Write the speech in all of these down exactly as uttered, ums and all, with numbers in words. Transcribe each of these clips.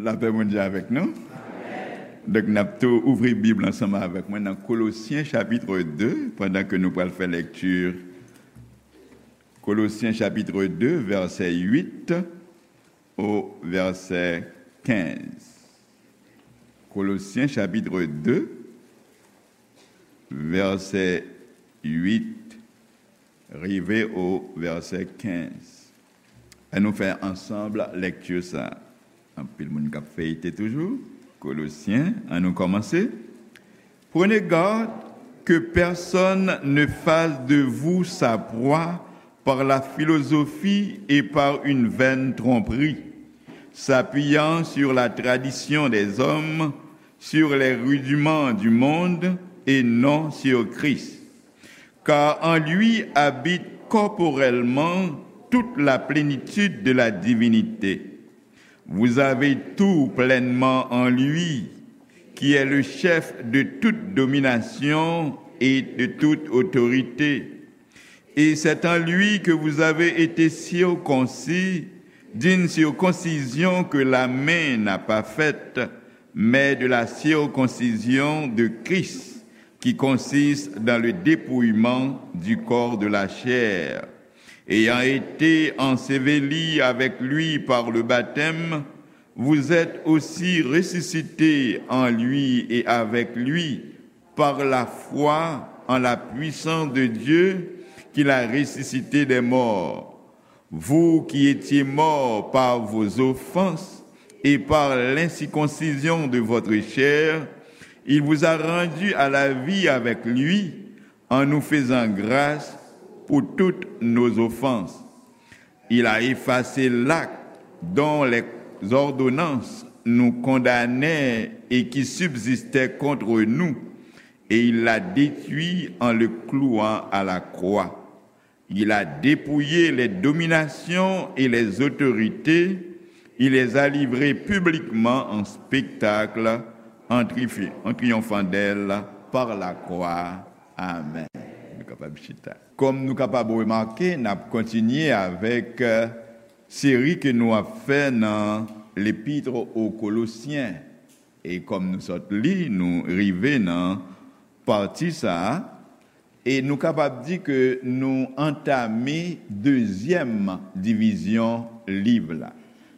Lapè Bondye avèk nou. Donk, n ap tou ouvri Bib la ansanm avèk mwen nan Kolosyen chapit de, pandan ke nou pral fè lekti Kolosyen chapit de, vèsè uit o vèsè kenz. Kolosyen chapit de, vèsè uit rive o vèsè kenz. Ann nou fè ansanm lekti sa a. Anpil moun k ap feyite toujou. Kolosyen, ann nou kòmanse. Prenez garde que personne ne fasse de vous sa proie par la philosophie et par une vaine tromperie, s'appuyant sur la tradition des hommes, sur les rudiments du monde et non sur Christ. Car en lui habite corporellement toute la plénitude de la divinité. Vous avez tout pleinement en lui, qui est le chef de toute domination et de toute autorité. Et c'est en lui que vous avez été circoncis d'une circoncision que la main n'a pas faite, mais de la circoncision de Christ, qui consiste dans le dépouillement du corps de la chair. Ayant été ensevelis avec lui par le baptême, vous êtes aussi ressuscités en lui et avec lui par la foi en la puissance de Dieu qui l'a ressuscité des morts. Vous qui étiez morts par vos offenses et par l'incirconcision de votre chair, il vous a rendus à la vie avec lui, en nous faisant grâce pour toutes nos offenses. Il a effacé l'acte dont les ordonnances nous condamnaient et qui subsistait contre nous, et il l'a détruit en le clouant à la croix. Il a dépouillé les dominations et les autorités, il les a livrées publiquement en spectacle, en, trifi- en triomphant d'elles par la croix. Amen. Nou kapab chita. Kòm nou kapab remake, n ap kontinye avèk, euh, seri ke nou ap fè nan Lepître aux Colossiens. E kòm nou sot li, nou rive nan pati sa a, e nou kapab di ke nou antame dezyèm divizyon liv la.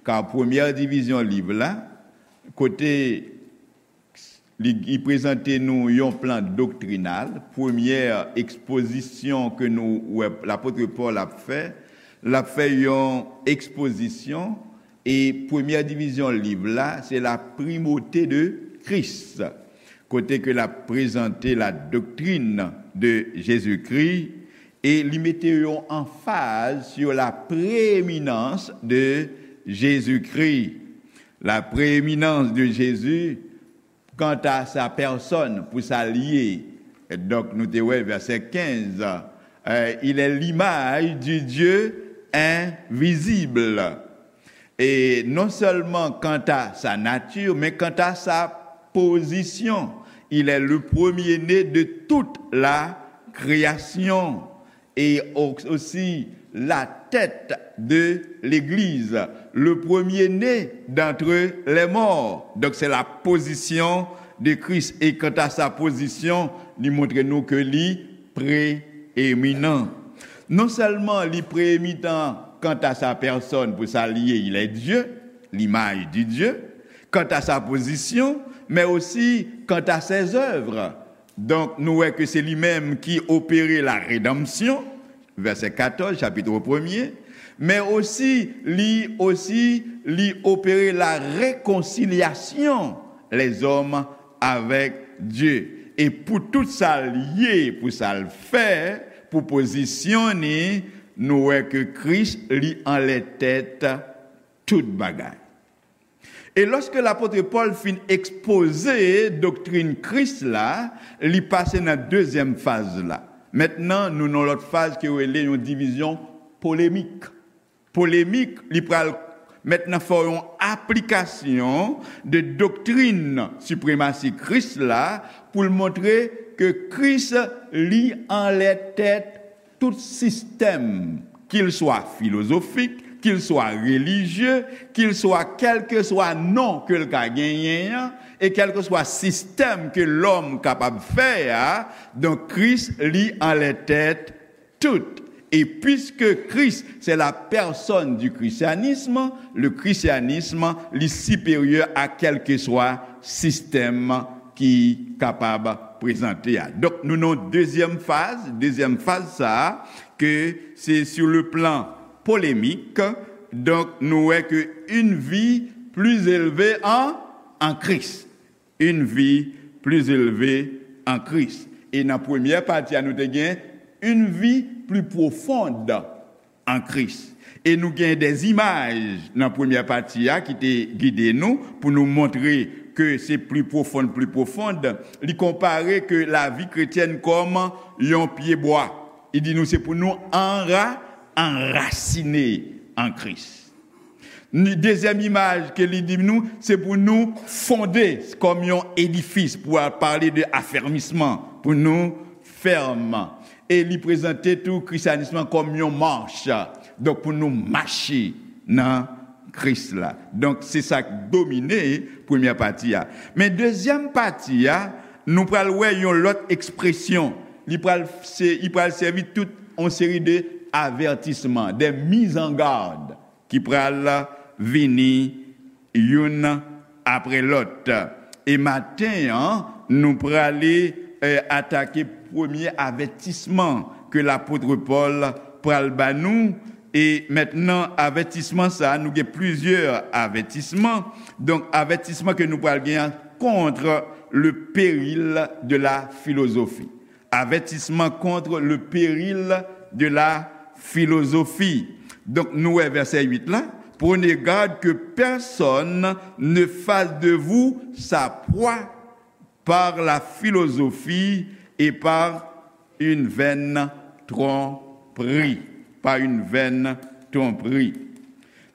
Ka premyè divizyon liv la, kote li, li prezante nou yon plan doktrinal, premyè ekspozisyon ke nou wè lapot Pòl ap fè, l ap fè yon ekspozisyon, e premyè divizyon liv la, se la primauté de Christ, kote ke l ap prezante la doctrine de Jésus-Christ, e li mete yon anfaz sur la prééminence de Jésus-Christ. La prééminence de Jésus, quant à sa personne, pour sa l ye. Donk, nou te wè vèsè kenz, euh, il est l'image du Dieu invisible. Et non seulement quant à sa nature, mais quant à sa position. Il est le premier-né de toute la création. Et au- aussi la tête de l'Église, le premier-né d'entre les morts. Donc, c'est la position de Christ. Et quant à sa position, li montre nou ke li prééminent. Non sèlman li prééminent quant à sa personne, pour sa l ye, il est Dieu, l'image du Dieu, quant à sa position, mais aussi quant à ses œuvres. Donk, nou wè ke se li menm ki opere la redanmsyon, vèsè katòz, chapit premye, men osi, li osi, li opere la rekonsilyasyon lèzòm avèk Dye. E pou tout sa l ye, pou sa l fè, pou pozisyon ni, nou wè ke Kris, li anlè tèt tout bagay. E lòske lapot Pòl fin ekspoze doktrin Kris la, li pase nan dezyèm faz la. Mentnan, nou nan lòt faz ki rele yon divizyon polemik. Polemik, li pral mentnan fè yon aplikasyon de doktrin sipremasi Kris la pou l montre ke Kris, li anlè tèt tout sistèm, qu'il soit philosophique, qu'il soit religieux, qu'il soit kèlkeswa non ke l ka genyen an, e kèlkeswa sistèm ke lòm kapab fè a, donk Kris, li anlè tèt tout. Et puisque Christ, c'est la personne du christianisme, le christianisme, li siperyè a kèlkeswa sistèm ki kapab prezante a. Donk, nou nan dezyèm faz, dezyèm faz sa a, ke se sur le plan polémique, donk, nou wè ke une vie plus élevée en, en Christ. Une vie plus élevée en Christ. E nan premyè pati a, nou te gen une vie plus profonde en Christ. E nou gen de imaj nan premyè pati a ki te gide nou pou nou montre ke se pli pwofon, pli pwofon. Li konpare ke lavi kretyèn kòm yon pye bwa. Li di nou se pou nou anra, anrasine an Kris. Ni dezyèm imaj ke li di nou, se pou nou fonde kòm yon edifis, pou al pale de afèmisman, pou nou fèm. E li prezante tou krisyanis lan kòm yon mach. Donk, pou nou mache nan Kris la. Donk, se sa k domine premyè pati a. Men dezyèm pati a, nou pral wè yon lòt ekspresyon. Li pral, se, li pral sèvi tout yon seri de avètisman, de mizangad ki pral vini youn apre lòt. E maten an, nou prale, eh, atake premye avètisman ke lapot Pòl pral ba nou. E mentnan, avètisman sa a, nou gen plizyè avètisman. Donk, avètisman ke nou pral gen an, contre le péril de la philosophie. Avertissement contre le péril de la philosophie. Donk, nou wè vèsè uit la. Prenez garde que personne ne fasse de vous sa proie par la philosophie et par une vaine tromperie. Par une vaine tromperie.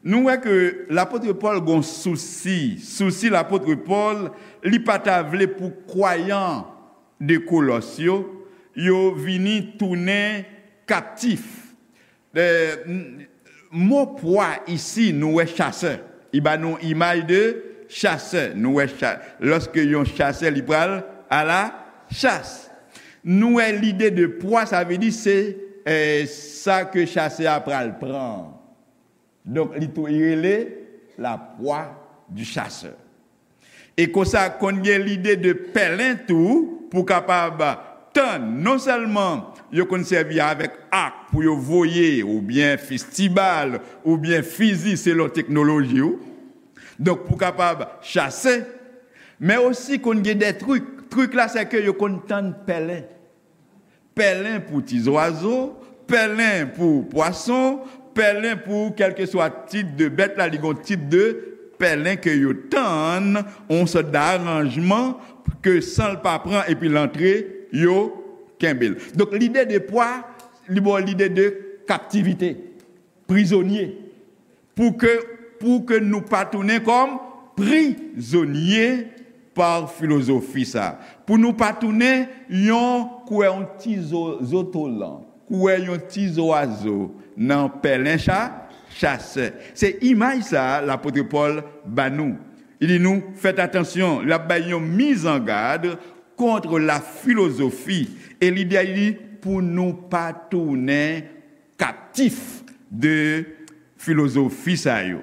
Nou wè ke lapot Pòl gon sousi. Sousi lapot Pòl, li pa ta vle pou kwayan de Kolòs yo, yo vini tounen kaptif. Eh, m-, mo pwa isi, nou wè chasè. Li ba nou imaj de chasè. Nou wè cha-, lòske yon chasè, li pral a la chas. Nou wè lide de pwa, sa vle di se, eh, sa ke chasè a pral pran. Donk, li tou, li rele la proie du chasseur. E konsa, konn gen lide de pèlen tou, pou kapab tann, non sèlman yo konn sèvi avèk ak pou yo voye, oubyen fistibal, oubyen fizi, selon teknoloji ou. Donk, pou kapab chase, men osi konn gen de trik. Trik la, se ke yo konn tann pèlen. Pèlen pou ti zwazo, pèlen pou pwason, pèlen pou kèlkeswa tip de bèt la, li gon tip de pèlen ke yo tann, yon sòt de aranjman ke san l pa pran epi l antre, yo kenbe l. Donk, lide de pwa, li ba w lide de kaptivite, prizonye. Pou ke, pou ke nou pa tounen kòm prizonye pa filozofi sa. Pou nou pa tounen yon, kwè yon ti zo-, zotolan, kwè yon ti zwazo nan pèlen cha-, chasè. Se imaj sa lapot Pòl ba nou. Li di nou, fèt atansyon, l ap bay yon mizangad contre la philosophie. E lide a li pou nou pa tounen kaptif de filozofi sa yo.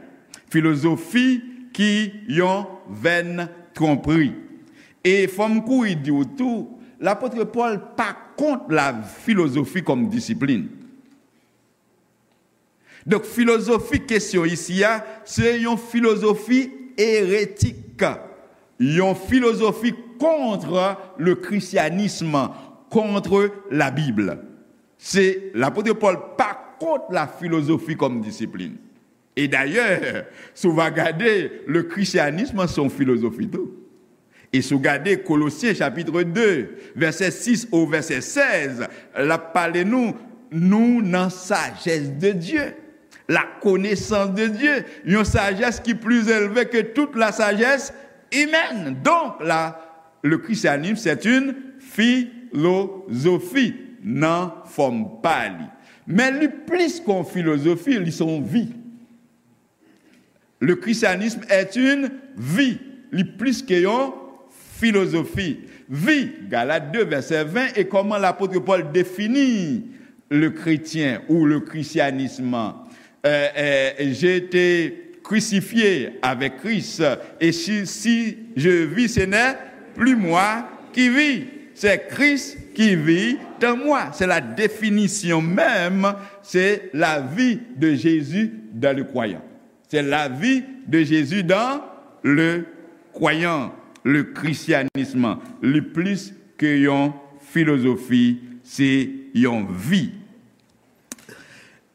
Filozofi ki yon vaine tromperie. E fò m kouri di w tou, lapot Pòl pa kont la filozofi kòm disiplin. Donk, filozofi kesyon isi a, se yon filozofi eretik, yon filozofi contre le christianisme, contre la Bible. Se lapot Pòl pa kont la filozofi kòm disiplin. E dayè, si w va gade, le christianisme se yon filozofi tou. E si w gade Kolosyen chapit de, vèsè sis o vèsè sèz, l ap pale nou, nou nan sajès de Dye, la konesans de Dye, yon sajès ki pli elve ke tout la sajès imèn. Donk, la, le christianisme, c'est une philosophie nan fòm pa li. Men li plis ke yon filozofi, li se yon vi. Le christianisme est une vie, li plis ke yon filozofi. Vi, Galat de, vèsè ven, e kòman lapot Pòl defini le chrétien ou le christianisme. Euh, euh, j'ai été crucifié avec Christ, et si, si je vis, ce n'est plus moi qui vis, c'est Christ qui vit en moi. C'est la définition même, c'est la vie de Jésus dans le croyant. C'est la vie de Jésus dans le croyant. Le christianisme, li plis ke yon filozofi, se yon vi.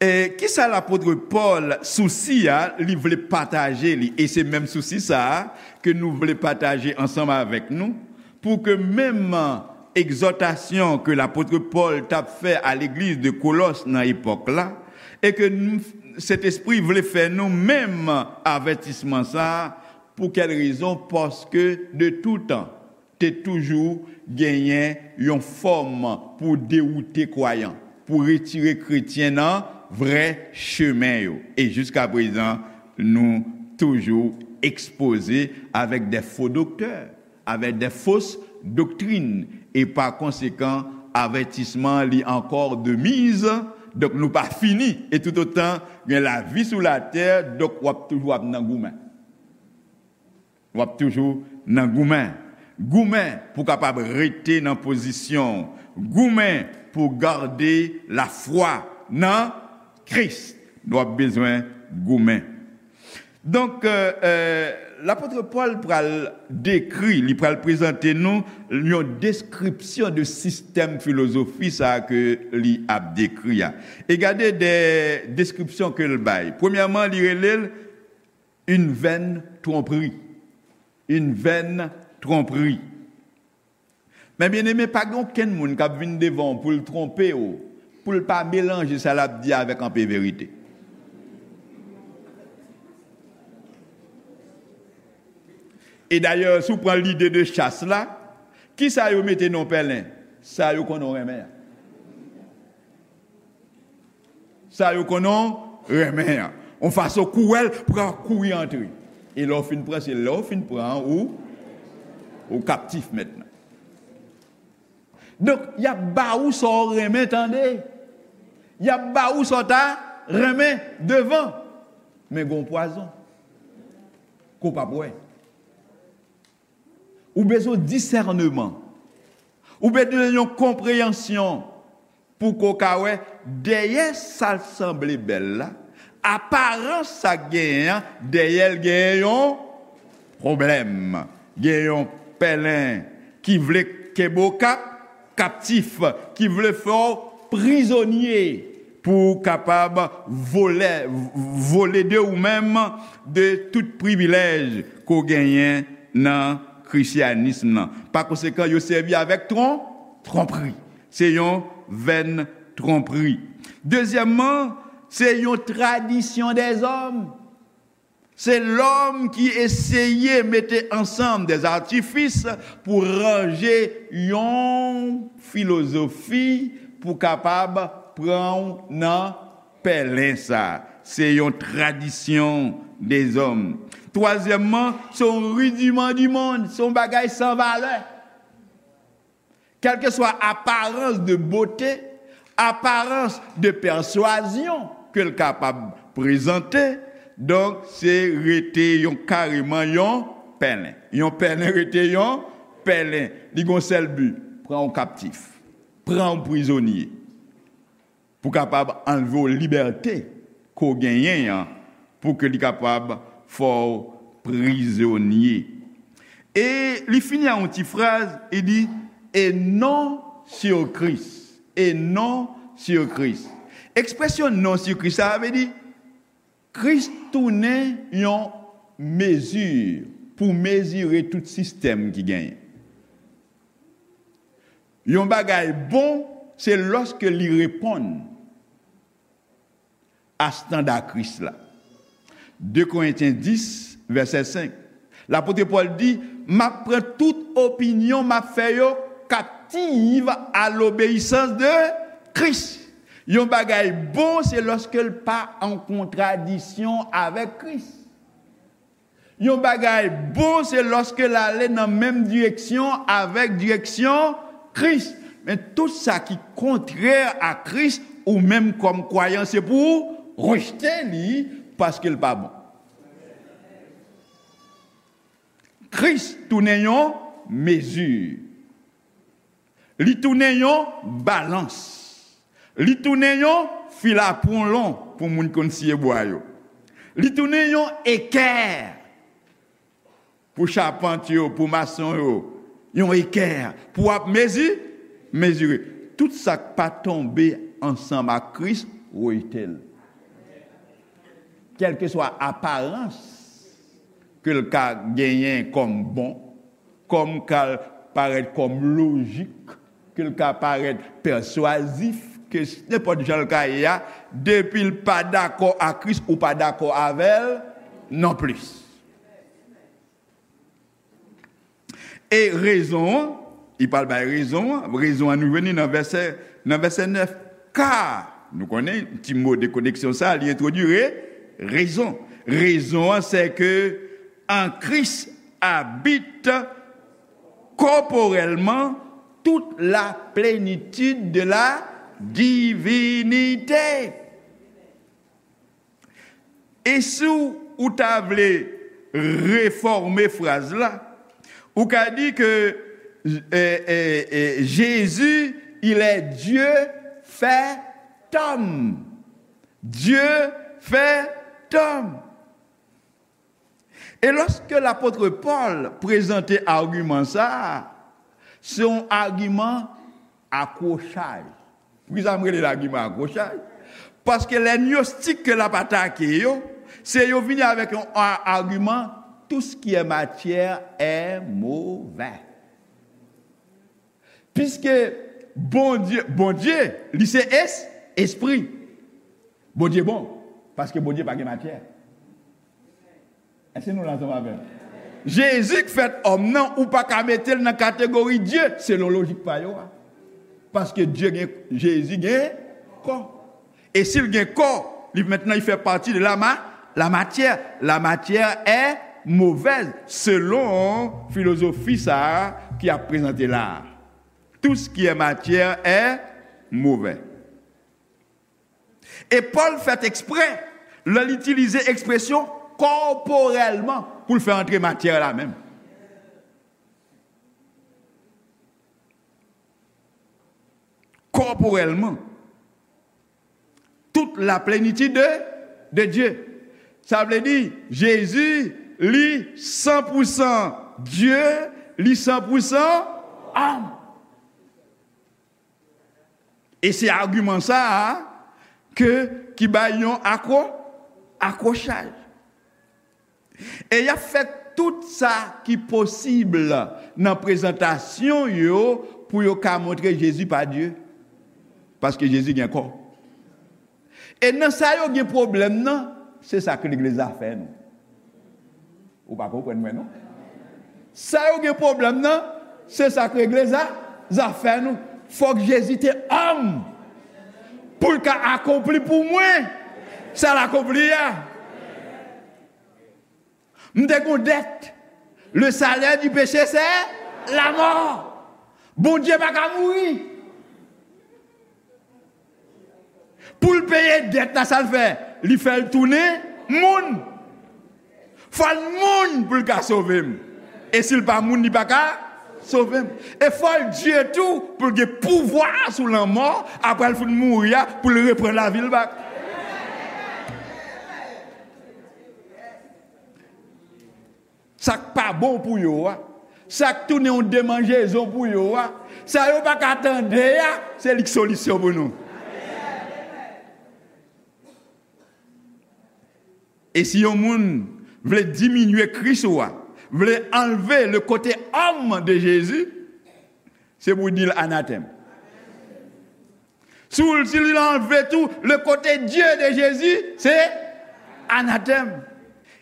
E kisa lapot Pòl sousi a, li vle pataje li, e se menm sousi sa a ke nou vle pataje ansanm avèk nou, pou ke menm egzòtasyon ke lapot Pòl t ap fè a legliz de Kolòs nan epòk la, e ke nou, Sentespri vle fè nou menm avètisman sa a, pou kèl rezon? Paske de toutan, te toujou genyen yon fòm pou dewoute kwayan, pou retire kretyen nan vrè chemen yo. E jiska prezan, nou toujou ekspoze avèk de fo doktè, avèk de fos doktrin, e pa konsekan, avètisman li ankò de miz, donk nou pa fini, e toutotan gen lavi sou latè, donk w ap toujou ap nan goumen. W ap toujou nan goumen. Goumen pou kapab rete nan pozisyon w. Goumen pou gade lafwa nan Kris. W ap bezwen goumen. Donk, euh, euh, lapot Pòl pral dekri, li pral prezante nou yon deskripsyon de sistèm filozofi sa a ke li ap dekri a. E gade de deskripsyon ke l bay. Premyèman, li rele l une vaine tromperie. Une vaine tromperie. Men byeneme, pa gen okenn moun k ap vin devan w pou l twonpe w, pou l pa melanje sa l ap di avèk anpe verite. E dayè, si w pran lide de chas la, kisa yo mete nan pèlen? Sa yo konnen w renmen an. Sa yo konnen w renmen an. Yon fason kouwèl pou kapab kouri antre. E lè w fin pran, se lè w fin pran an, ou, ou kaptif mentnan. Donk, y ap ba ou sa w renmen tande. Y ap ba ou sa w ta renmen devan. Men gen yon pwazon ke w p ap wè. Ou bezwen disèneman. Ou bezwen yon konpreyansyon pou ke w ka wè dèyè sa l sanble bèl la, aparans sa k genyen an, dèyè l genyen yon pwoblèm. Gen yon pèlen ki vle kenbe w kap, kaptif, ki vle fè w prizonye pou w kapab vole, vole de ou menm, de tout privilèj ke w genyen nan krisyanism nan. Pa konsekan, yo sèvi avèk tron-, twonpri. Se yon vèn twonpri. Dezyèmman, se yon tradisyon dèzòm. Se lòm ki eseye mete ansanm dèzatifis pou ranje yon filozofi pou kapab pran w nan pèlen sa. Se yon tradisyon dèzòm. Twazyèmman, se yon ridiman di monn, se yon bagay san valè. Kèlkeswa aparans de bote, aparans de pèswazyon ke l kapab prezante, donk, se rete yon, kareman yon pèlen. Yon pèlen rete yon pèlen. Li gon sèl bi, pran w kaptif, pran w prizonye, pou kapab anlve w libète ke w genyen an, pou ke li kapab fè w prizonye. E li fini ak yon ti fraz, li di, et non sur Christ, et non sur Christ. Ekspresyon non sur Christ, sa vle di, Kris tounen yon mezi pou mezire tout sistèm ki genyen. Yon bagay bon, se lòske li reponn a estanda Kris la. De Korentyen dis, vèsè senk. Lapot Pòl di, m ap pran tout opinyon, m ap fè yo kaptiv a lobeyisans de Kris. Yon bagay bon, se lòske l pa an kontradisyon avèk Kris. Yon bagay bon, se lòske l ale nan menm direksyon avèk direksyon Kris. Men tout sa ki kontrè a Kris, ou menm kòm kwayan, se pou ou rejte li, paske l pa bon. Kris tounen yon mezi. Li tounen yon balans. Li tounen yon fil a pwolon pou moun konn siye bwa yo. Li tounen yon ekè pou chapant yo, pou mason yo. Yon ekè pou w ap mezi, mezire. Tout sa k pa tonbe ansanm ak Kris, rejte l. Kèlkeswa aparans ke l ka genyen kòm bon, kòm ka parèt kòm lojik, ke l ka parèt pèswazif, ke s-, nenpòt jan l ka ye a, depi l pa dakò ak Kris, ou pa dakò avè l non plis. E rezon an, li pral bay rezon an, rezon an nou jwenn li nan vèsè, nan vèsè nèf. Ka, nou konnen, ti mo de koneksyon sa, li entwodui re-, rezon. Rezon an, se ke en Christ habite corporellement toute la plénitude de la divinité. E si w ta vle refòme fraz la, ou ka di ke, eh, eh, eh, Jésus, il est Dieu fait homme. Dieu fait homme. E lòske lapot Pòl prezante agiman sa a, se yon agiman akwochay. Poukisa m rele l agiman akwochay? Paske lè gnostik ke l ap atake yo, se yo vini avèk yon a-, agiman, tout ce qui est matière est mauvais. Piske Bondye, Bondye, li se es-, espri. Bondye bon, paske Bondye pa gen matyè. Èske nou la ansanm avè m? Jezi k fèt òm nan, ou pa ka mete l nan kategori Dye, selon lojik pa yo a. Paske Dye gen, Jezi gen kò. E si l gen kò, li mentnan, li fè pati de la ma-, la matière. La matière est mauvaise, selon filozofi sa a ki ap prezante la a. Tout ce qui est matière est mauvais. E Pòl fèt eksprè lè l itilize ekspresyon kòporèlman pou l fè antre matyè la menm. Kòporèlman. Toute la plénitude de, de Dieu. Sa vle di, Jezi, li san pou san Dye, li san pou san òm. E se agiman sa a ke, ki bay yon akwo-, akwochay. E y ap fè tout sa ki posib nan prezantasyon yo pou yo ka montre Jezi pa Dye. Paske Jezi gen kò. E nan sa yo gen pwoblèm nan, se sa k legliz la fè nou. Ou pa konprann mwen, non? Sa yo gen pwoblèm nan, se sa k legliz la, zafè nou. Fòk Jezi te òm pou l ka akonpli pou mwen sa l akonpli a. M te gon dèt. Le salaire du péché, c'est la mort. Bondye pa ka mouri. Pou l peye dèt la, sa l fè? Li fè l tounen moun. Fò l moun pou l ka sove m. E si l pa moun, li pa ka sove m. E fò l Dye tou pou l gen pouvwa sou lanmò, apre l fin mouri a, pou l reprann lavi l bak. Sa k pa bon pou yo a, sa k tounen yon demanjezon pou yo a, sa yo pa ka tande a, se li k solisyon pou nou. E si yon moun vle diminye Kris ou a, vle anlve le kote òm de Jezi, se pou di l anatèm. Si w, si l anlve tou le kote Dye de Jezi, se anatèm.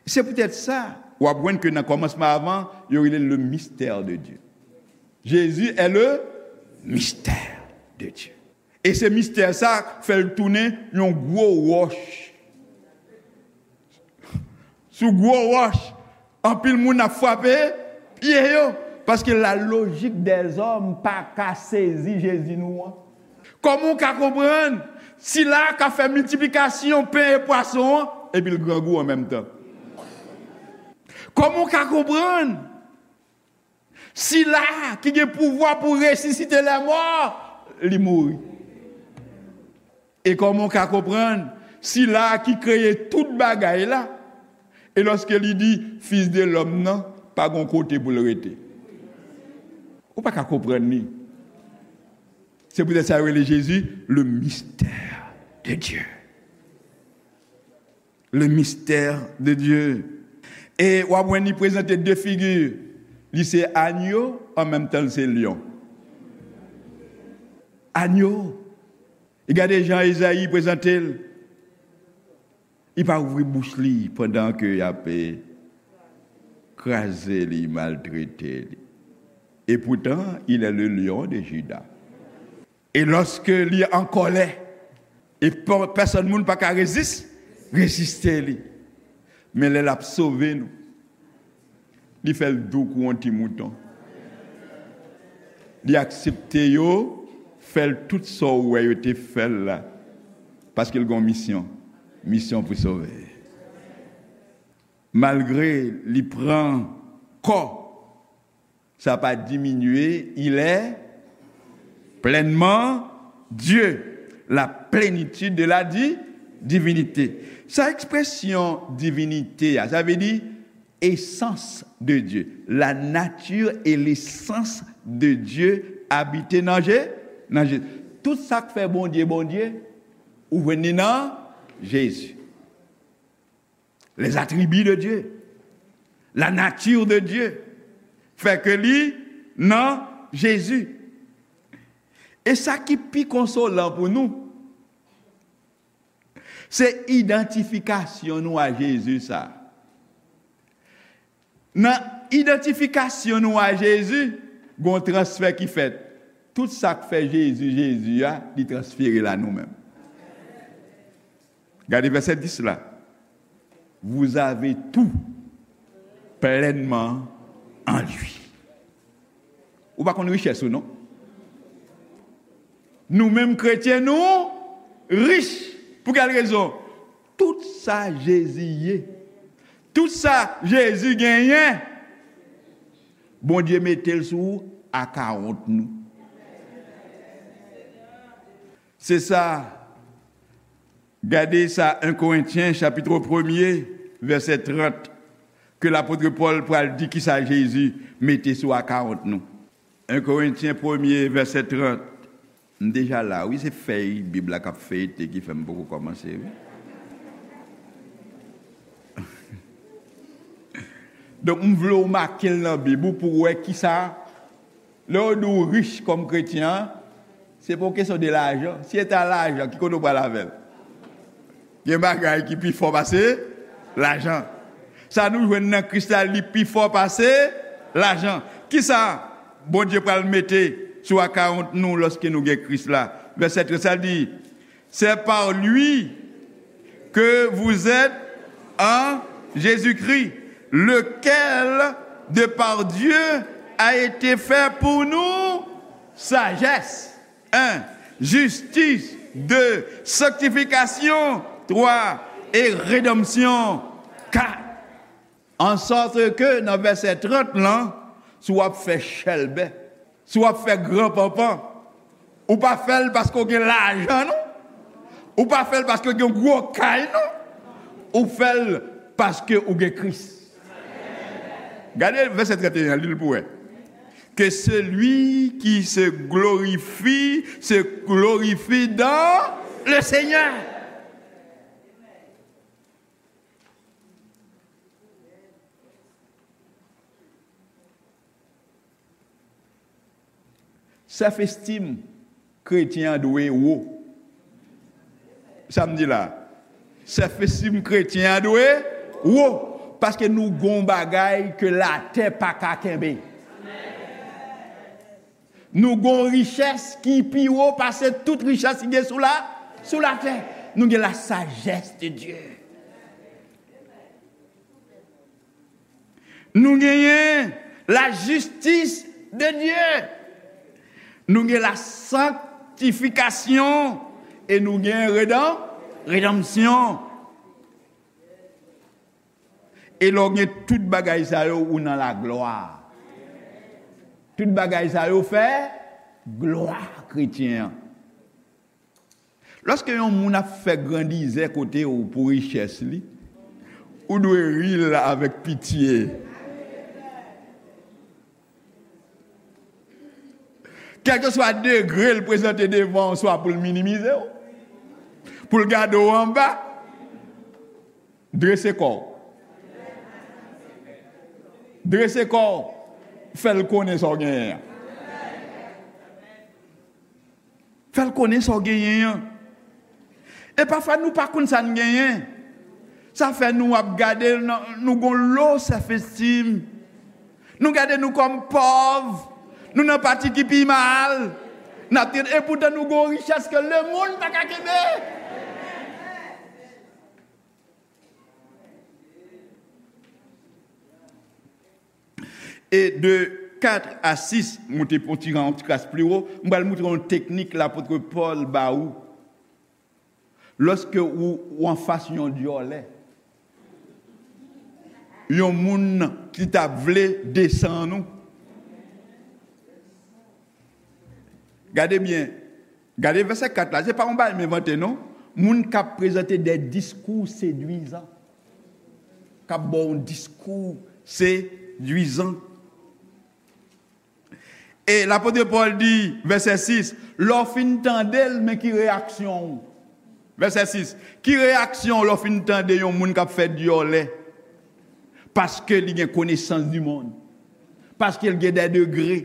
Se poutèt sa, w ap jwenn ke nan kòmansman avan, yo rele l le mystère de Dieu. Jésus est le mystère de Dieu. E se mistè sa k fè l tounen yon gwo wòch. Sou gwo wòch, Anpil moun ap frape pye yo, paske la lojik dèzòm pa ka sezi Jezi nou an. Kòman w ka konprann sila k ap fè miltiplikasyon pen e pwason an, epi l grangou an menm tan? Kòman w ka konprann sila ki gen pouvwa pou resisite lèmò, li mouri? E kòman w ka konprann sila ki kreye tout bagay la, e lòske li di, Fis de lòm nan pa gon kote pou l rete? Ou pa ka konprann li. Se poutèt sa yo rele Jezi le mystère de Dieu. Le mystère de Dieu. E w ap wè li prezante de figi. Li se anyo, an menm tan l se lyon. Anyo. E gade jan Ezayi prezante l. Li pa ouvri bouch li pandan ke y ap, eh, kraze li, maltrete li. Et pourtant, il est le lion de Juda. E lòske li an kòlè, e pè-, pèsòn moun pa ka rezis-, reziste li. Men lè l ap sove nou, li fè l dou kou yon ti mouton. Li aksepte yo fè l tout sa w wè yo te fè l la. Paske l gen yon misyon. Misyon pou sove. Malgre li pran kò, sa pa diminye, il est pleinement Dieu, la plénitude de la di-, divinité. Sa ekspresyon divinite a, sa vle di essence de Dieu, la nature et l'essence de Dieu abite nan Je-, nan Jezi. Tout sa k fè Bondye Bondye, ou jwenn li nan Jezi. Les attributs de Dieu, la nature de Dieu, fè ke li nan Jezi. E sa ki pi konsolan pou nou, se idantifikasyon nou a Jezi sa. Nan idantifikasyon nou a Jezi, gon transfè ki fèt. Tout sa k fè Jezi, Jezi a, li transfere l a nou menm. Gade vèsè dis la. Vous avez tout pleinement en lui. Ou pa konn richès ou non. Nou menm kretyen, nou rich. Pou kèl rezon? Tout sa Jezi ye, tout sa Jezi genyen, Bondye mete l sou akawont nou. Se sa, gade sa en Korentyen chapit premye, vèsè trant, ke lapot Pòl pral di kisa Jezi mete sou akawont nou. En Korentyen premye, vèsè trant. M deja la, wi, se fèy Bib la k ap feyte ki fè m poko kòmanse, wi. Donk, m vle w make l nan Bib ou pou w wè kisa, lè yo di w rich kòm kretyen an, se pa yon kesyon de lajan. Si se ta lajan, ki kote w pral avè l? Gen bagay ki pi fò pase lajan. Sa nou jwenn nan Kris la, li pi fò pase lajan. Kisa Bondye pral mete sou akawont nou lòske nou gen Kris la? Vèsè trant sa di, c'est par lui que vous êtes en Jésus-Christ, lequel de par Dieu a été fait pour nous sagesse, un, justice, deux, sanctification, trois, et rédemption, quatre. En sorte que, nan vèsè trant lan, si w ap fè chèlbè, si w ap fè gran panpan, ou pa fè l paske w gen lajan, non. Ou pa fè l paske w gen gwo kay, non. Ou fè l paske ou gen Kris. Gade vèsè trant e en an, li l pou wè. Que celui qui se glorifie, se glorifie dans le Seigneur. Self-esteem kretyen an dwe wo. Sa m di la? Self-esteem kretyen an dwe wo. Paske nou gon bagay ke latè pa ka kenbe. Nou gon richès ki pi wo pase tout richès ki gen sou la, sou latè. Nou gen la sagesse de Dieu. Nou genyen la justice de Dieu. Nou gen la sanctification. E nou gen redan, redanmsyon. E lè w gen tout bagay sa yo, ou nan laglwa. Tout bagay sa yo fè glwa kretyen an. Lòske yon moun ap fè grandizè kote w pou richès li, ou dwe ri l avèk pitye. Kèlkeswa degre l prezante devan w, swa pou l minimize w, pou l gade w anba, drese kò w. Drese kò w. Fè l konnen sa w genyen an. Fè l konnen sa w genyen an. E pafwa nou pa konn sa n genyen. Sa fè nou ap gade, nou gon low self esteem. Nou gade nou kòm pòv. Nou nan pati ki pi mal. N ap tande, epoutan nou gon richès ke lemonn pa ka kenbe. E de kat a sis, moute pou ti jan, yon ti kras pli wo, m pral moutre w yon teknik lapot Pòl ba ou. Lòske ou, ou anfas yon dyòlè, yon moun ki t ap vle desann ou, gade byen, gade vèsè kat la, se pa yon bagay m envante non. Moun k ap prezante de diskou sedwizan, k ap ba w yon diskou sedwizan. E lapot Pòl di, vèsè sis, lè w fin tande l, men ki reyaksyon w? Vèsè sis, ki reyaksyon w lè w fin tande yon moun k ap fè dyòlè? Paske li gen konesans di mond. Paske l gen dè degre.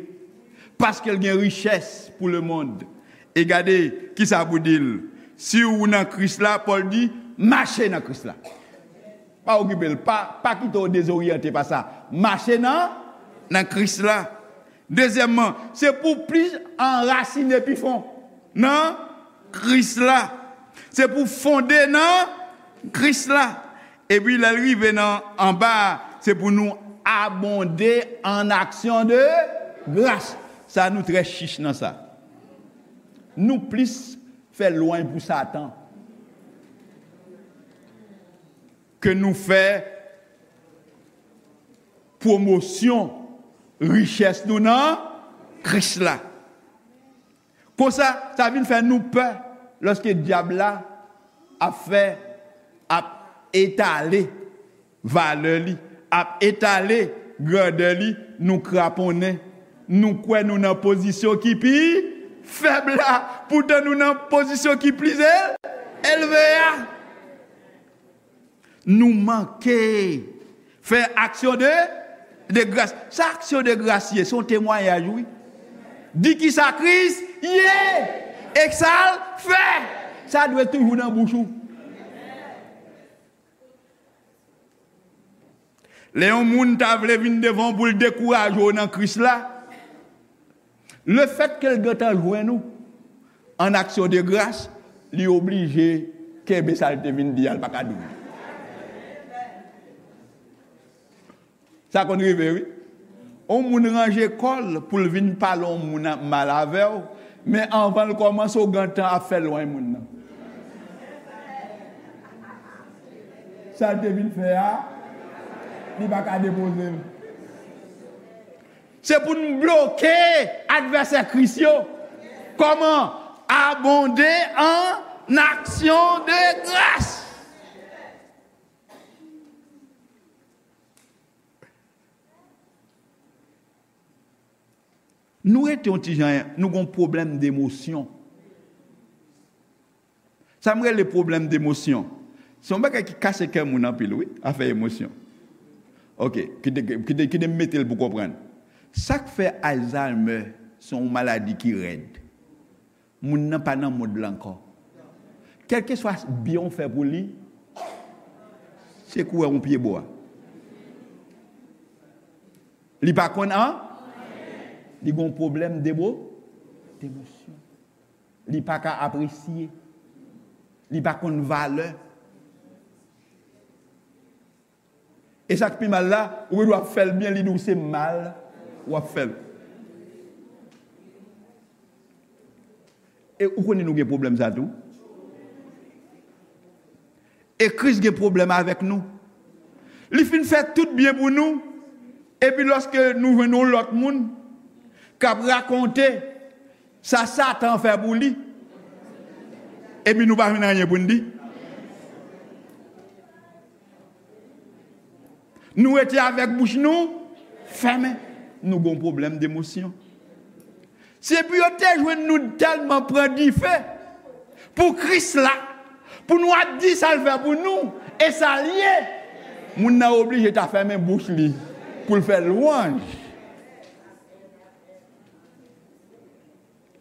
Paske l gen richès pou lemonn. E gade kisa pou di l. Si w nan Kris la, Pòl di, mache nan Kris la. Pa okipe l. Pa, pa kite w dezoryante pa sa. Mache nan, nan Kris la. Dezyèmman, se pou w plis anrasine pi fon nan Kris la. Se pou w fonde nan Kris la. Epi lè l rive nan anba a, se pou nou abonde en action de grâce. Sa nou trè chich nan sa. Nou plis fè lwanj pou Satan ke nou fè pwomosyon richès nou nan Kris la. Konsa, sa vin fè nou pè lòske dyab la ap fè, ap etale valè li, ap etale grandè li, nou kraponnen. Nou kwè nou nan pozisyon ki pi fèb la, poutan nou nan pozisyon ki pli el-, elve a. Nou manke fè aksyon de, de gras. Sa aksyon de gras ye? Se yon temwayaj, wi. Di kisa Kris ye e sa l fè. Sa dwe toujou nan bouch ou. Lè yon moun ta vle vin devan w pou l dekouraje w nan Kris la, lefètke l gentan jwenn ou an aksyon de gras, li oblije kenbe sa l te vin di a, l pa ka di w. Sa konn rive, wi. Yon moun ranje kò l pou l vin pale yon moun mal avè w, men anvan l kòmanse, w gentan ap fè lwanj moun nan. Sa l te vin fè a, li pa ka depoze l. Se pou n bloke advèsè Kris yo. Kòman? Abonde en action de grâce. Nou rete yon ti jan, nou gon pwoblèm demosyon. Sa m rele pwoblèm demosyon. Se yon bagay ki kase kè moun anpil, wi, afè emosyon. Ok, kite, kite, kite m mete l pou konprann. Sa k fè Alzheimer se yon maladi ki rèd. Moun nan pa nan mond la ankò. Kèlkeswa byen w fè pou li, se kou wè yon pye bwa. Li pa konn an, li gon pwoblèm demo, demosyon. Li pa ka apresye. Li pa konn valè. E sa k pi mal la, ou gen dwa ap fè l byen, li di w se mal w ap fè l. E ou konnen nou gen pwoblèm sa tou. E Kris gen pwoblèm avèk nou. Li fin fè tout byen pou nou. Epi lòske nou jwenn yon lòt moun k ap rakonte sa Satan fè pou li, epi nou pa jwenn anyen pou n di. Nou rete avèk bouch nou fèmen. Nou gon pwoblèm demosyon. Se pou yo te jwenn nou tèlman pran dife pou Kris la, pou nou ap di sa l fè pou nou, e sa l ye. Moun nan oblije ta fèmen bouch li pou l fè lwanj.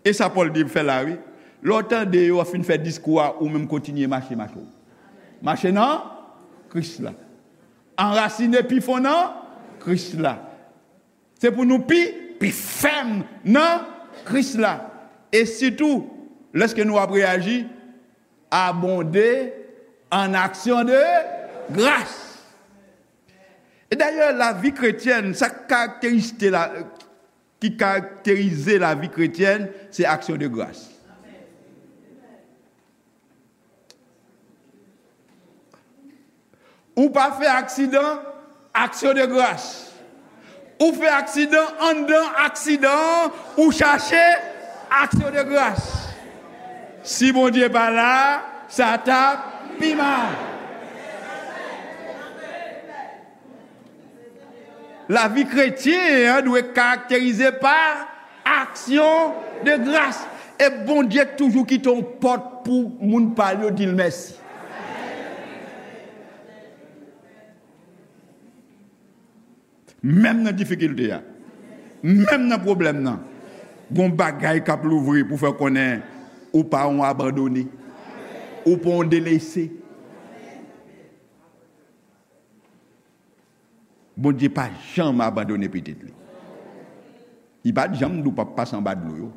E sa Pòl di fè la, wi. Lè w tande yo fin fè diskou a, ou menm kontinye mache, mache w. Mache nan Kris la. Anrasine pi fon nan Kris la. Se pou nou pi, pi fèm nan Kris la. E sitou, lèske nou ap reyaji, abonde an aksyon de gras. E dayè, lavi kretyèn, sa k karakterizte la, ki karakterize lavi kretyèn, se aksyon de gras. Ou pa fè aksidan, aksyon de gras. Ou fè aksidan, anndan aksidan an, ou chache aksyon de gras. Si Bondye pa la, sa t ap pi mal. Lavi kretyen an dwe karakterize pa aksyon de gras. E Bondye toujou kite yon pòt pou moun pa l yo di l mèsi. Menm nan difikilte a, menm nan pwoblèm nan, gon bagay k ap louvri pou fè w konnen ou pa yon abandone, ou pa yon delese. Bondye pa janm abandone pitit li. Li pa t janm di w p ap pase anba dlo yo.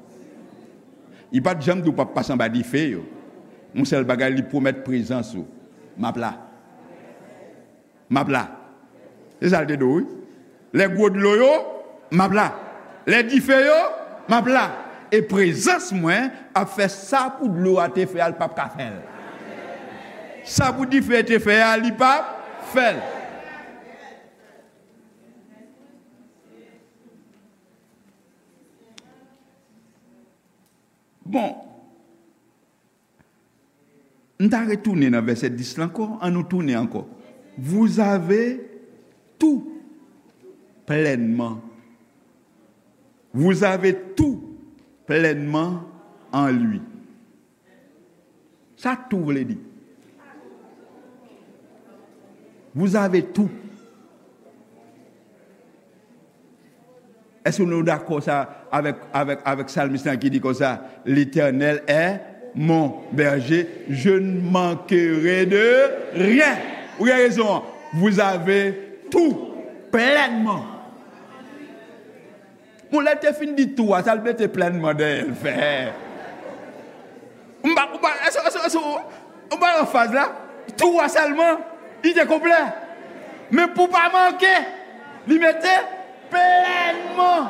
Li pa t janm di w p ap pase anba dife yo. Yon sèl bagay, li pwomèt prezans ou. M ap la. M ap la. Se sa l te di w, wi. Lè gwo dlo yo, m ap la. Lè dife yo, m ap la. E prezans mwen ap fè sa pou dlo a te fè a, l p ap ka fè l. Sa pou dife te fè a, li p ap fè l. Bon, m ta retounen nan vèsè dis la ankò. Ann nou tounen ankò. Vous avez tout pleinement. Vous avez tout pleinement en lui. Sa tout vle di? Vous avez tout. Èske nou dakò sa avèk, avèk, avèk salmis lan ki di konsa, L'Éternel est mon berger, je ne manquerai de rien. Ou gen rezon an. Vous avez tout pleinement. Bon, lè l te fin di tou a, sa l mete plenman dèyè l fè? M pa, m pa, èske, èske, èske, m pa anfaz la? Tou a sèlman, li te konplè. Men pou pa manke, li mete plenman.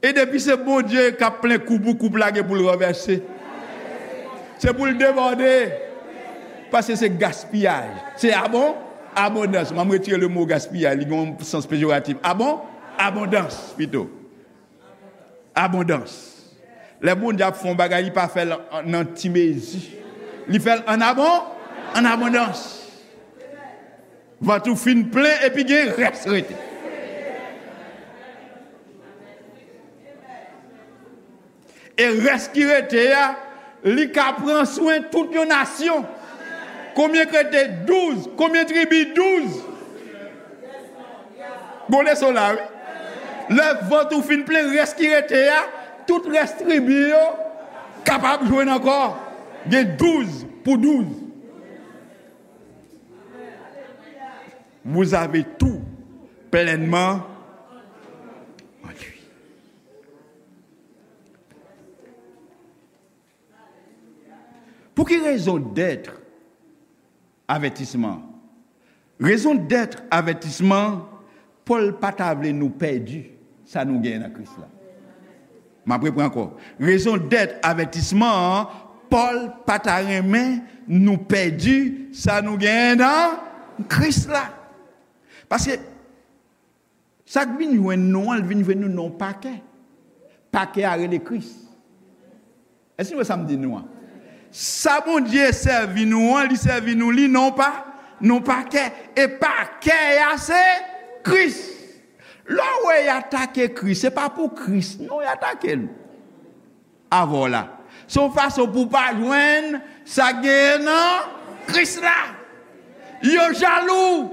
E depi se Bondye k ap plen koup ou, koup la gen pou l ranvèse. Se pou l debòde. Paske se gaspiyaj. Se abon, abondans. M a retire le mo gaspiyaj. Li gen yon sans pejoratif. Abon, abondans, pito. Abondans. Lè Bondye ap fè yon bagay, li pa fè l an, nan ti mezi. Li fè l an abon, an abondans. Vant ou fin plen epi gen rès rete. E rès ki rete a, li ka pran swen tout yon nasyon. Konbyen k rete? Douz. Konbyen tribi? Douz. Bon leson la, wi. Lè vant ou fin plen, rès ki rete a, tout rès tribi yo kapab jwenn ankò. Gen douz pou douz. Vous avez tout pleinement en lui. Pou ki rezon dèt avètisman? Rezon dèt avètisman, Pòl pa ta vle nou pèdi sa nou genyen nan Kris la. M ap repran ankò. Rezon dèt avètisman an, Pòl pa ta renmen nou pèdi sa nou genyen nan Kris la. Paske sa k vin jwenn nou an, l vin jwenn nou nan yon pakè. Pakè a rele Kris. Èske nou wè sa m di nou an? Sa Bondye sèvi nou an, li sèvi nou li nan pa, nan pakè. E pakè a se Kris. Lè w wè y atake Kris, se pa pou Kris, non, y atake l. Avè w la. Se yon fason pou w pa jwenn sa k genyen nan Kris la. Yo jalou.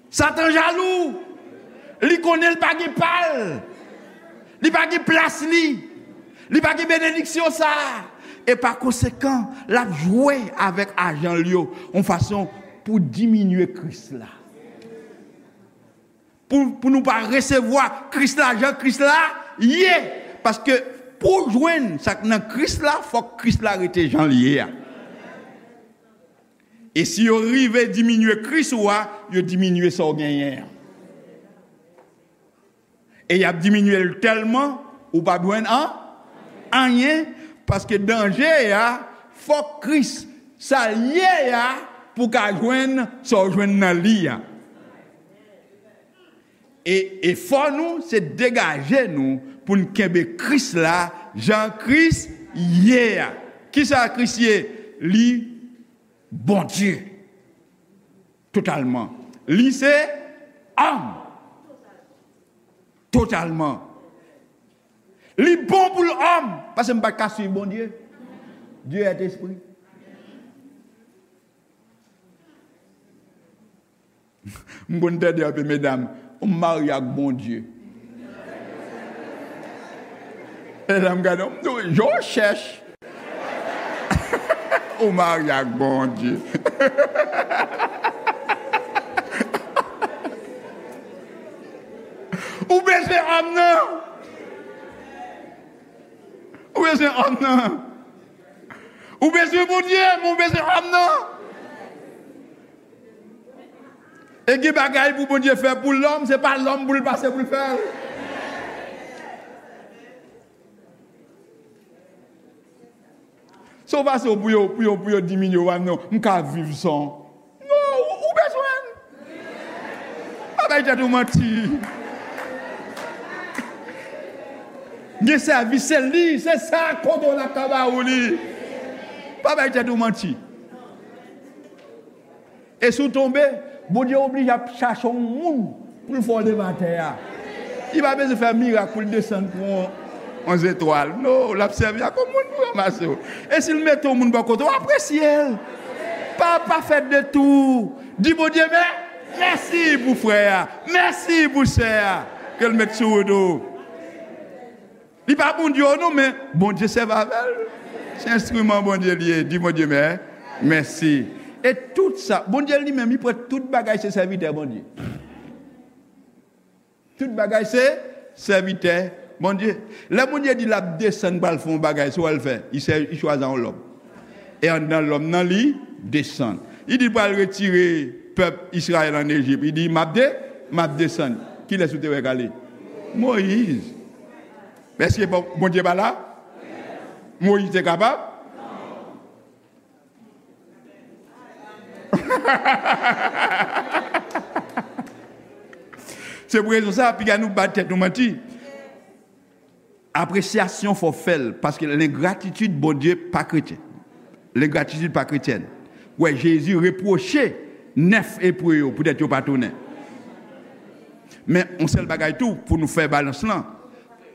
Satan jalou. Li konnen l pa gen pa l. Li pa gen plas li. Li pa gen benediksyon sa a. E pa konsekan, l ap jwe avèk ajan l yo yon fason pou diminye Kris la. Pou, pou nou pa resevwa Kris la jan Kris la ye. Paske pou w jwenn sa k nan Kris la, fòk Kris la rete jan l ye a. E si yo rive diminye Kris ou a, yo diminye sa w genyen an. E y ap diminye l tèlman, ou p ap jwenn an, anyen, paske danje a, fòk Kris, sa l ye a, pou w ka jwenn sa w jwenn nan li a. E efò nou, se degaje nou pou n kenbe Kris la, jan Kris ye a. Kisa Kris ye? Li Bondye. Totalman. Li se òm. Totalman. Li bon pou l òm. Paske m pa t ka swiv Bondye. Dieu est esprit. M konn tande anpil medam, ou marye ak Bondye. Medam gade, m di w, je cherche. Ou marye ak Bondye. Ou bezwen òm nan. Ou bezwen òm nan. Ou bezwen Bondye, men ou bezwen òm nan. E gen bagay pou Bondye fè pou lòm, se pa lòm pou l pase pou l fè l. Se yon fason pou yo, pou yo, pou yo diminye w, non, m ka viv san. Non, ou, ou bezwen l. Pa bay tèt ou manti. Gen sèvis, se li, se sa kote w la ka ba ou li. Pa bay tèt ou manti. E si w tonbe, Bondye oblije ap chache yon moun pou l fè w leve atè a. Li pa bezwen fè mirak pou l desann pran yon, yon zetwal. Non, l ap sèvi ak yon moun pou ranmase w. E si l mete yon moun bò kote w, apresye l. Pa, pa fè detou. Di Bondye mè-, mèsi pou frè a. Mèsi pou sè a. Ke l met sou wout ou. Li pa Bondye w non, men Bondye sèvi avè l. Se enstriman Bondye li ye. Di Bondye mè-, mèsi. E tout sa, Bondye li menm, li pran tout bagay se sèvitè Bondye. Tout bagay se sèvitè Bondye. Lè Bondye di l ap desann pral fè yon bagay, se w al fè. Li sè-, li chwazi yon lòm. E anndan lòm nan li desann. Li di l pral retire pèp Izrayèl ann Ejip. Li di, m ap de-, m ap desann. Kilès ou te wè k ale? Moyiz. Èske Bon-, Bondye pa la? Moyiz te kapab? Se pou rezon sa, piga nou ba tèt nou manti. Apresyasyon fò w fè l, paske lengratitid Bondye pa kretyen. Lengratitid pa kretyèn. Wè, Jezi repwoche nèf Ebre yo poutèt yo pa tounen. Men, yon sèl bagay tou, pou nou fè balans lan,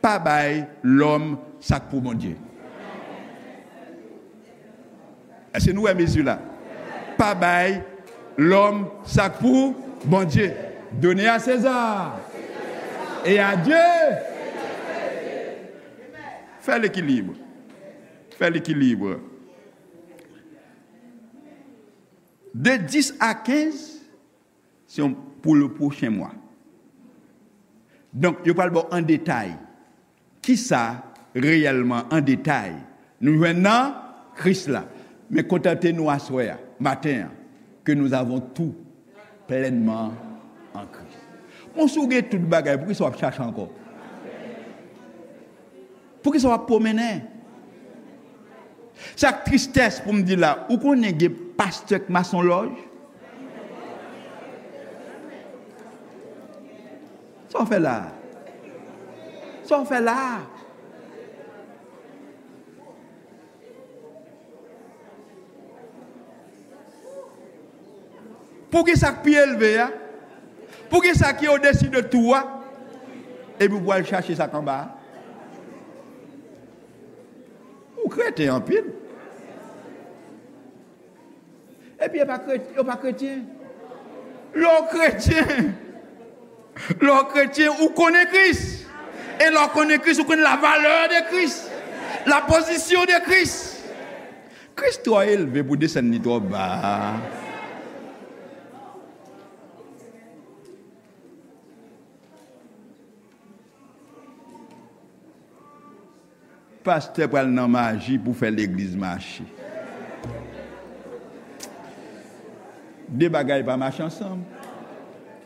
pa bay lòm sa k pou Bondye. Èske nou wè mezi la? Pa bay lòm sa k pou Bondye. Donner à César et à Dieu. Fè lekilib. Fè lekilib. De dis a kenz, se yon pou le pwochen mwa. Donk, yo pral ba w an detay kisa reyèlman, an detay, Nou jwenn nan Kris la. Men kontante nou aswè a, maten an, que nous avons tout pleinement en Christ. Bon, si w gen tout bagay, poukisa w ap chache ankò? Poukisa w ap pwomennen? Sa k tristès pou m di la, ou konnen gen pastè k masonlòj? Sa w fè la a? Sa w fè la a? Pou gen sa k pi elve a? Pou gen sa ki odesi de tou a? Epi pou al chache sa k anba a? Ou kreten anpil. Epi yo pa kre-, yo pa kretyen. Lè w kretyen, lè w kretyen, ou konnen Kris. E lè w konnen Kris, ou konnen la valè de Kris, la pozisyon de Kris. Kris twò elve pou desann li twò ba. Pastè pral nan maji pou fè legliz mache. De bagay pa mache ansanm.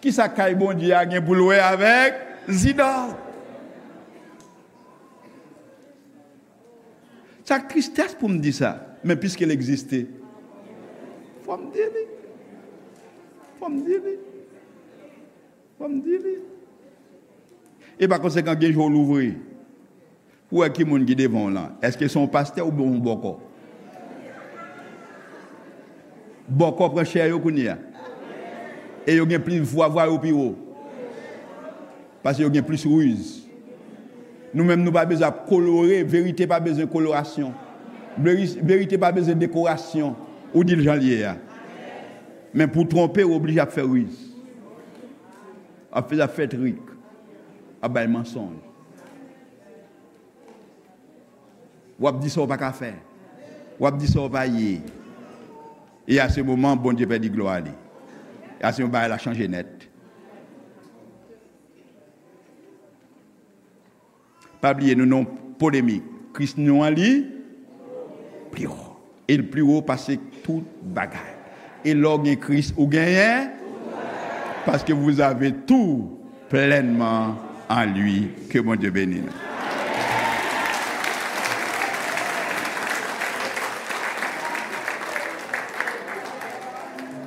Kisa kay Bondye a gen pou l wè avèk zidòl? Sa k tristès pou m di sa, men piske l egziste, fò m di li. Fò m di li. Fò m di li. E pa konsekan, gen jou w louvri pou wè ki moun ki devan w lan. Èske se yon pastè oubyen yon bòkò? Bòkò pran chè yo kounye a. E yo gen plis vwa, vwa yo pi wo. Paske yo gen plis riz. Nou menm, nou pa bezwen ap kolore, verite pa bezwen kolorasyon. Veri-, verite pa bezwen dekorasyon. Ou di l jan l ye a. Men pou twonpe, ou oblije ap fè riz. Ap fè, ap fè trik. Ap bay mansonj. W ap di sa w pa ka fè. W ap di sa w pa ye. E a se moman, Bondye pèdi glwa li. E a se yon bagay la chanje nèt. Pa bliye, nou nan yon polemik. Kris nou an li pli wo. E l pli wo pase tout bagay. E lè w gen Kris, ou genyen. Paske vous avez tout pleinement en lui. Ke Bondye beni nou.